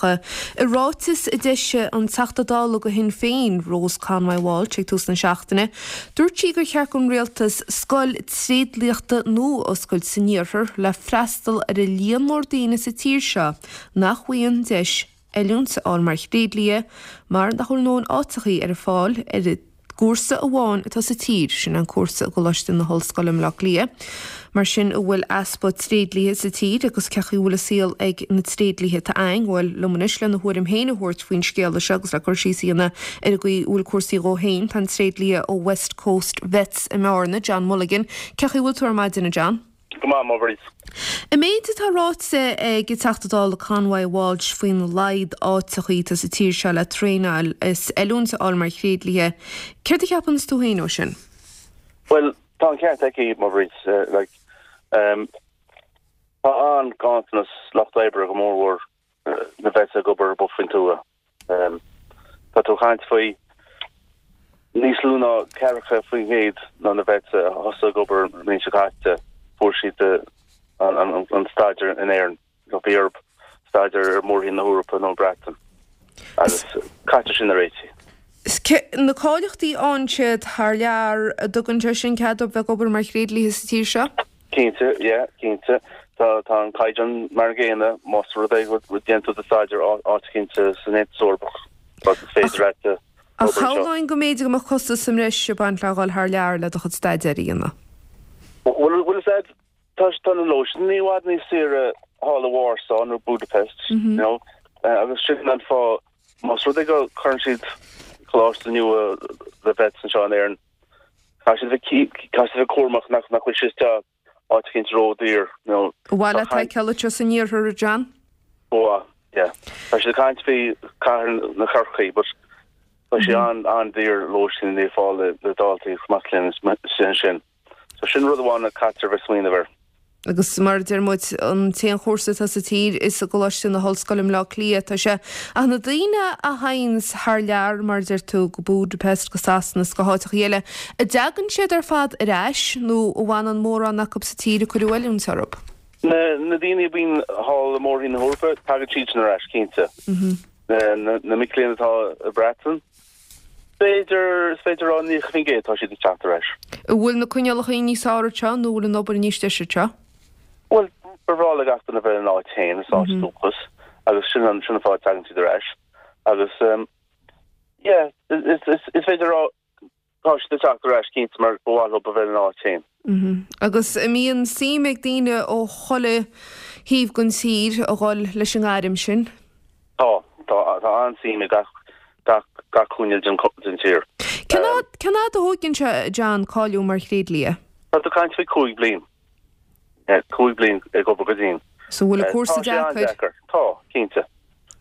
Ach i ráiteas a d'eisigh an Teachta Dála do Shinn Féin, Rose Conway Walsh ag tús na seachtaine, dúirt sí gur cheart don rialtas scoil tréidliachta nua a oscailt san iarthar le freastal ar an líon mór daoine sa tír seo nach bhfaigheann deis oiliúint a fháil mar thréidlia mar nach bhfuil a ndóthain áiteachaí ar fáil ar an gcúrsa amháin atá sa tír, sin an cúrsa i gColáiste na hOllscoile i mBleá Cliath. Mar sin, an bhfuil easpa tréidliaithe sa tír agus cén chaoi a bhfuil an saol ag na tréidliaithe atá againn? Bhuel, liom anois lena thuairim féin a thabhairt faoin scéala seo agus le cur síos a dhéanamh ar an gcaoi a bhfuil cúrsaí dhó féin, tá an tréidlia ó West Coast Vets i mBearna, John Mulligan. Cén chaoi a bhfuil tú ar maidin, a John? Go maith, a Mhairéad. An méid atá ráite ag an Teachta Dála Conway Walsh faoina laghad áiteachaí atá sa tír seo le traenáil is oiliúint a fháil mar thréidliaithe, céard a cheapanns tú féin ó sin? Bhuel, tá an ceart aici, a Mhairéad. Like, tá an-ghanntanas lucht oibre go mórmhór na vets ag obair amuigh faoin tuath. Tá tú ag caint faoi níos lú ná 40% ná na vets a thosaigh ag obair an bhliain seo caite, fuair siad an staidéar in Éirinn, nó bhí orthu staidéar ar mhórthír na hEorpa nó an Bhreatain. Agus caitear sin a réitigh. Na cáilíochtaí a fhaigheann siad thar lear, an dtugann sé sin cead dóibh bheith ag obair mar thréidliaithe sa tír seo? Cinnte, yeah, cinnte. Tá, tá an caighdeán mar an gcéanna, más rud é go ndéanann tú do staidéar áit eicínt san Aontas Eorpach, is féidir leat obair Ach anseo. shamhlóinn go mb'fhéidir go mbeadh costas sa mbreis ag baint le dhul thar lear le do chuid staidéir a dhéanamh. Bhuel, bhuel, is ea, tá, tá na lóistíní i bhfad níos saoire thall i Warsaw nó Budapest, you know, agus sin an fáth, más rud é go gcuireann siad coláiste nua le vets anseo in Éirinn, Caithfidh siad a bheith caithfidh siad a bheith cúramach nach nach bhfuil sé isteach áit eicínt ródhaor nó An mhaith leat é a fheiceáil anseo san iarthar, a John? Ba mhaith, yeah. Tá siad ag caint faoi cathair na Chorcaí but tá sé an an-daor lóistín a fháil le le daltaí is mac léinn sin sin. So sin rud amháin a caitear a bheith smaoineamh air. Agus mar a deir muid, an t-aon chúrsa atá sa tír is i gColáiste na hOllscoile i mBleá Cliath atá sé. Ach na daoine a théanns thar lear, mar a deir tú, go Budapest, go Sasana is go háiteachaí eile, an dtagann siad ar fad ar ais nó an bhfanann mórán acu sa tír a cuireadh oiliúint orthu? Na daoine a bhíonn thall i mórthír na hEorpa, tagann siadsan ar ais, cinnte. Na mic léinn atá i Breatain, B'fhéidir, is féidir a rá 90% tá siad ag teacht ar ais. An bhfuil na coinníollacha níos fearr anseo nó an bhfuil an obair níos deise anseo? Bhuel, ba bhreá le gach duine bheith ina áit féin, sa áit dúchas, agus sin an, sin an fáth a dtagann siad ar ais. Agus, yeah, is, is, is féidir a rá tá siad ag teacht ar ais cinnte mar ba mhaith leo a bheith ina áit féin. Agus an mbíonn suim ag daoine ó chuile thaobh den tír a dhul leis an ngairm sin? Tá, tá, tá an-suim i gach, gach, gach cúinne den, den tír. Cén fhad, cén fhad a thóigeann sé, John, cáiliú mar thréidlia? Tá tú ag caint faoi 5 bliain. 5 bliain ag obair go dian. So bhfuil an cúrsa deacair? Tá sé an-deacair. Tá, cinnte.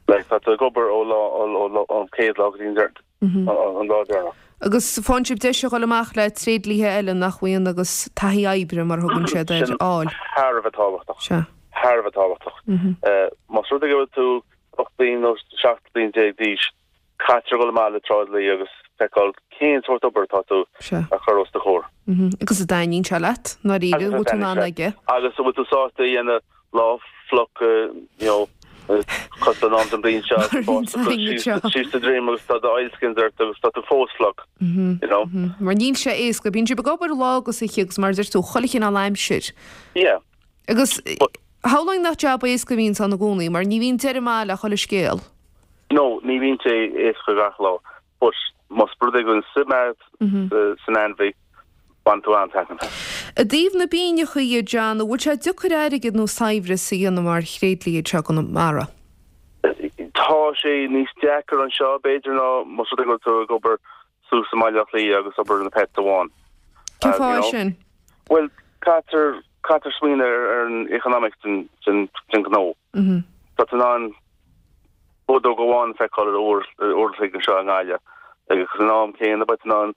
Like, tá tú ag obair ó lá, ó, ó, ón chéad lá go dtí an deireadh. an lá deireanach. Agus faigheann sibh deis a dhul amach le tréidliathe eile nach bhfaigheann agus taithí oibre, mar a thugann siad air, a fháil. Sin thar a bheith tábhachtach. Sea. Thar a bheith tábhachtach. Más rud é go bhfuil tú 18 bliain nó 17 bliain d'aois, caitear a dhul amach le tráidliaí agus feiceáil cén sórt obair atá tú a chur os do chomhair. Agus an dtaitníonn sé leat, i ndáiríre, an bhfuil tú in ann aige. Agus an bhfuil tú sásta a dhéanamh lá fliuch, you know, cosúil le an am den bhliain seo, síos do dhroim agus tá do oilskins ort agus tá tú fós fliuch, you know. Mar níl sé éasca, bíonn sibh ag obair lá agus oíche agus mar a deir tú, chuile chineál aimsir. Yeah. Agus shamhlóinn nach jab éasca a bhíonns ann i gcónaí, mar ní bhíonn deireadh maith le chuile scéal. No, ní bhíonn sé éasca gach lá. But más rud é go bhfuil suim agat san ainmhí, baineann tú an-taitneamh as. I dtaobh na bpingineacha dhe, John, an bhfuil sé deacair airgead nó saibhreas a dhéanamh mar thréidlia anseo i gConamara? Tá sé níos deacair anseo, b'fhéidir, ná más rud é go bhfuil tú ag obair suas i mBaile Átha Cliath agus obair na pets amháin. Cén fáth é sin? Bhuel, caitear, caitear smaoineamh ar an economics den, den, den ghnó. Tá tú in ann Bodóg amháin a feiceáil ar uair an chloig anseo i nGaillimh agus san am céanna beidh tú in ann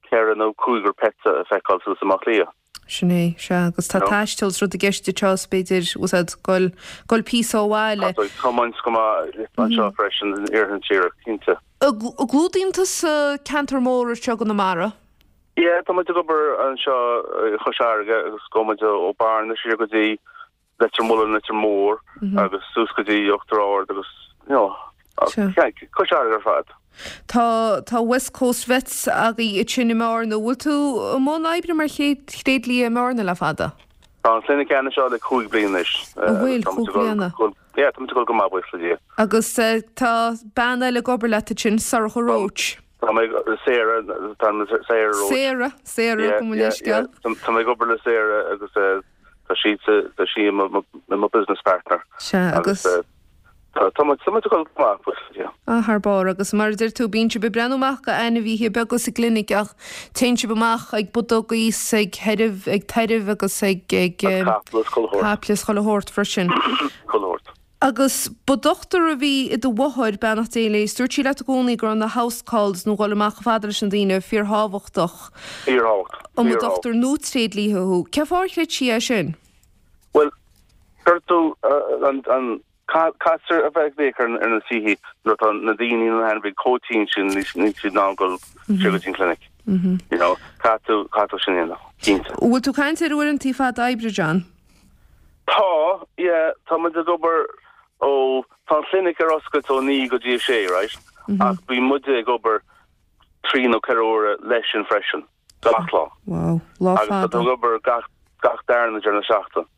ceithre nó cúigear pets a feiceáil suas i mBaile Átha Cliath. Sin é, sea, agus tá taisteal is rud i gceist anseo is b'fhéidir, bhfuil a fhios agat, goil, goil píosa ó bhaile. Tá tú ag tiomáint go maith anseo freisin in iarthar na tíre, cinnte. An gclúdaíonn tusa ceantar mór anseo i gConamara? Yeah, tá muid ag obair anseo i Chois Fharraige agus gabhann muid ó Bearna siar go dtí Leitir Mealláin, Leitir Móir agus suas go dtí Uachtar Ard agus. you know, Cois Fharraige ar fad. Tá tá West Coast Vets agaibh ansin i mBearna. Bhfuil tú i mbun oibre mar thréidlia i mBearna le fada? Tá an chlinic ann anseo le 5 bliana anois. An bhfuil? 5 bliana? Yeah, tá muid ag dul go maith, buíochas le Dia. Agus tá bean eile ag obair leat ansin, Sorcha Roche. Tá mé, Sarah, tá Sarah Roche. Sarah, Sarah, gabh mo leithscéal. Tá mé ag obair le Sarah agus tá sí, tá sí i mo business partner. Sea, agus. Tá muid ag dul go maith, buíochas le Dia. Ah, thar barr. Agus mar a deir tú, bíonn sibh ag breathnú amach go ainmhithe beaga sa gclinic ach téann sibh amach ag bodaigh is ag theirbh, ag tairbh agus ag, ag. Caiple is chuile shórt. Caiple is chuile shórt freisin. Chuile shórt. Agus ba dochtúir a bhí i do mháthair, beannacht Dé léi, is dúirt sí leat i gcónaí go raibh na house calls nó dhul amach chomh fada leis na daoine fíorthábhachtach. Fíorthábhachtach. An mba dochtúir nó tréidlia thú. Cén fáth ar chreid sí é sin? Bhuel, cuir tú an, an, caithfear a bheith ag féach ar na tithe nuair atá na daoine nó na hainmhithe chomh tinn sin níl siad in ann dul siar go dtí an clinic. You know, caithfidh tú, caithfidh tú sin a dhéanamh, cinnte. Bhfuil tú ag caint ar uaireanta fada oibre, John? Tá, yeah, tá muid ag obair ó, tá an chlinic ar oscailt ó 9 go dtí 6, right? Ach bíonn muide ag obair trí nó ceithre huaire leis sin freisin, gach lá. Wow, lá fada. Agus tá tú ag obair gach, gach darna deireadh seachtaine.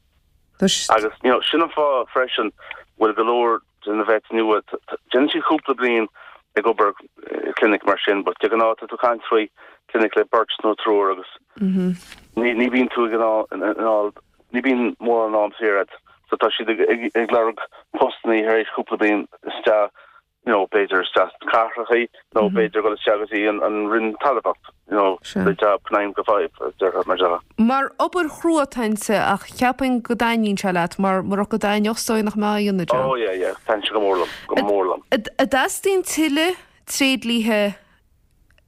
Agus, you know, sin an fáth freisin bhfuil go leor de na vets nua, déanann siad cúpla bliain ag obair i clinic mar sin, but de ghnáth tá tú ag caint faoi clinic le beirt nó triúr agus ní ní bhíonn tú ag in ann ní bhíonn mórán am saor agat. So tá siad ag ag lorg postannaí tar éis cúpla bliain isteach you know, b'fhéidir isteach sna cathrachaí nó b'fhéidir dul isteach go dtí an an Roinn Talmhaíocht, you know, the job 9 go 5 a déarfá mar seo. Mar obair chrua atá inti ach cheapfainn go dtaitníonn sé leat mar murach go dtaitneodh is dóigh nach mbeifeá á dhéanamh, John. Oh yeah, yeah, taitníonn sé go mór liom, go mór liom. An dteastaíonn tuilleadh tréidliatha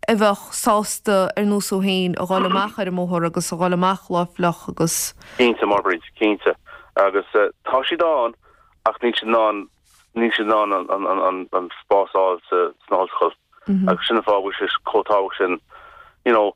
a bheadh sásta ar nós thú féin a dhul amach ar an mbóthar agus a dhul amach lá fliuch agus. Cinnte, Máire Bríd, cinnte. Agus tá siad ann ach níl siad in ann níl siad in ann an spás a fháil sna hollscoil agus sin an fáth a bhfuil sé chomh tábhachtach sin you know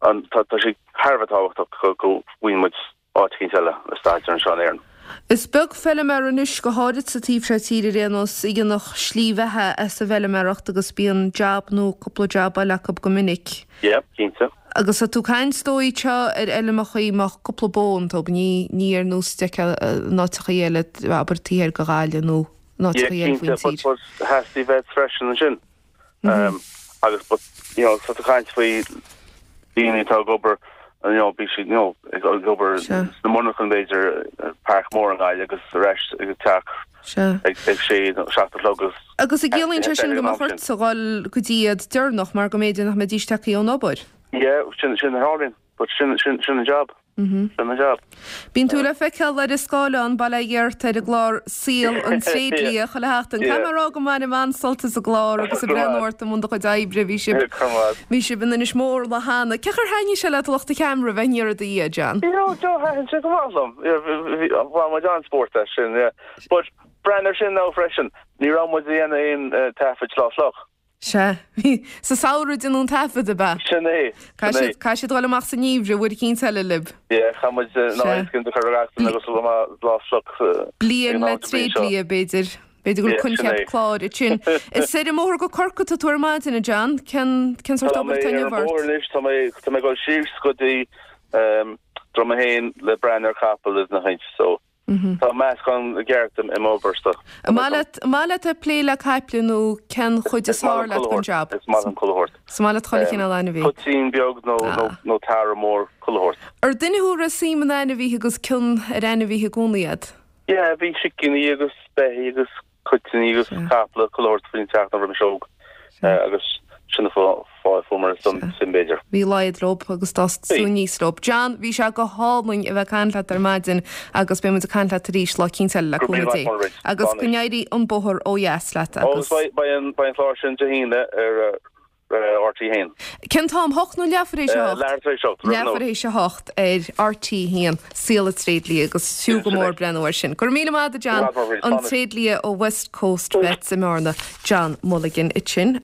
an tá tá sé thar a bheith tábhachtach go go bhfaigheann muid áit eicínt eile le staidéar anseo in Éirinn. Is beag feilméara anois, go háirid sa taobh seo tíre ar aon nós, a dhéanfadh slí bheatha as an bhfeilméaracht agus bíonn jab nó cúpla jab eile acu go minic. Yeah, cinnte. Agus tá tú ag caint is dóigh anseo ar fheilmeachaí a mbeadh cúpla bó iontu, ní, ní ar nós a d'fheicfeá in áiteachaí eile, abair taobh thiar de Ghaillimh nó in áiteachaí eile faoin tír. Yeah, cinnte, but, but theastaigh vets freisin ansin. Agus but, you know, tá tú ag caint faoi daoine atá ag obair, you know, bhí siad, you know, ag obair sna monarchana b'fhéidir, Páirc Mhór i nGaillimh agus ar ais ag an teach ag sé nó 7 a chlog agus. Agus an gciallaíonn sé sin go mbeadh ortsa dhul go dtí iad deireanach mar go mb'fhéidir nach mbeidís tagtha ón obair? Yeah, sin sin a tharlaíonn, but sin sin sin an job. Sin an job. Bíonn tú le feiceáil ar an scáileán, bail ó Dhia ort, ar an gclár Saol an Tréidlia chuile sheachtain. Caithfidh mé a rá go mbainim an-sult as an gclár agus ag breathnú ort i mbun do chuid oibre. Bhí sibh bhí sibh in Inis Mór lá cheana. Cén chaoi ar thaitnigh sé leat lucht an cheamara bheith aniar i do dhiaidh, John? You know, Joe, thaitin sé go maith liom. Bhain muid an-spórt as sin, yeah. But breathnaigh ar sin now freisin, ní raibh muid ag déanamh aon taifid lá fliuch. Sea. Sa samhradh a déanadh an taifead, ab ea? Sin é. Sin é. Caithfidh siad dul amach sa ngeimhreadh, uair eicínt eile libh. Yeah, chaith muid na oileáin a chur ar gach duine agus dul amach lá fliuch. Bliain le tréidlia, b'fhéidir. B'fhéidir go bhfuil coincheap cláir ansin. Is ar an mbóthar go Corcaigh atá tú ar maidin, a John. Cén cén sórt obair atá inniu ort? Tá mé ar an mbóthar anois, tá mé tá mé ag dul síos go dtí Droim 1 le breathnú ar chapall is na haint, so Tá meascán ceart i m'obairsa. An maith leat, an maith leat ag plé le caiple nó cén chuid is fearr leat den jab? Is maith liom chuile shórt. Is maith leat chuile chineál ainmhí. Toitín beag nó nó tarbh mór, chuile shórt. Ar duine thú a raibh suim in ainmhithe agus cion ar ainmhithe i gcónaí agat? Yeah, bhí sicíní agus beithígh agus Toitíní agus caiple chuile shórt faoin teach nuair a bhí mise óg agus sin an fáth a fuair mé an suim b'fhéidir. Bhí laghad leo agus d'fhás tú aníos leo. John, bhí sé go hálainn a bheith ag caint leat ar maidin agus beidh muid ag caint leat arís lá eicínt eile le cúnamh Dé. Agus go n-éirí an bóthar ó dheas leat agus. Beidh an clár sin Dé hAoine ar RTÉ 1. Cén t-am? Hocht nó leathuair tar éis a hocht? Leathuair tar éis a hocht. Leathuair tar éis a hocht ar RTÉ 1, Saol an Tréidlia agus fiú go mór breathnú air sin. Go raibh míle maith agat a John, an tréidlia ó West Coast Vets i mBearna, John Mulligan ansin.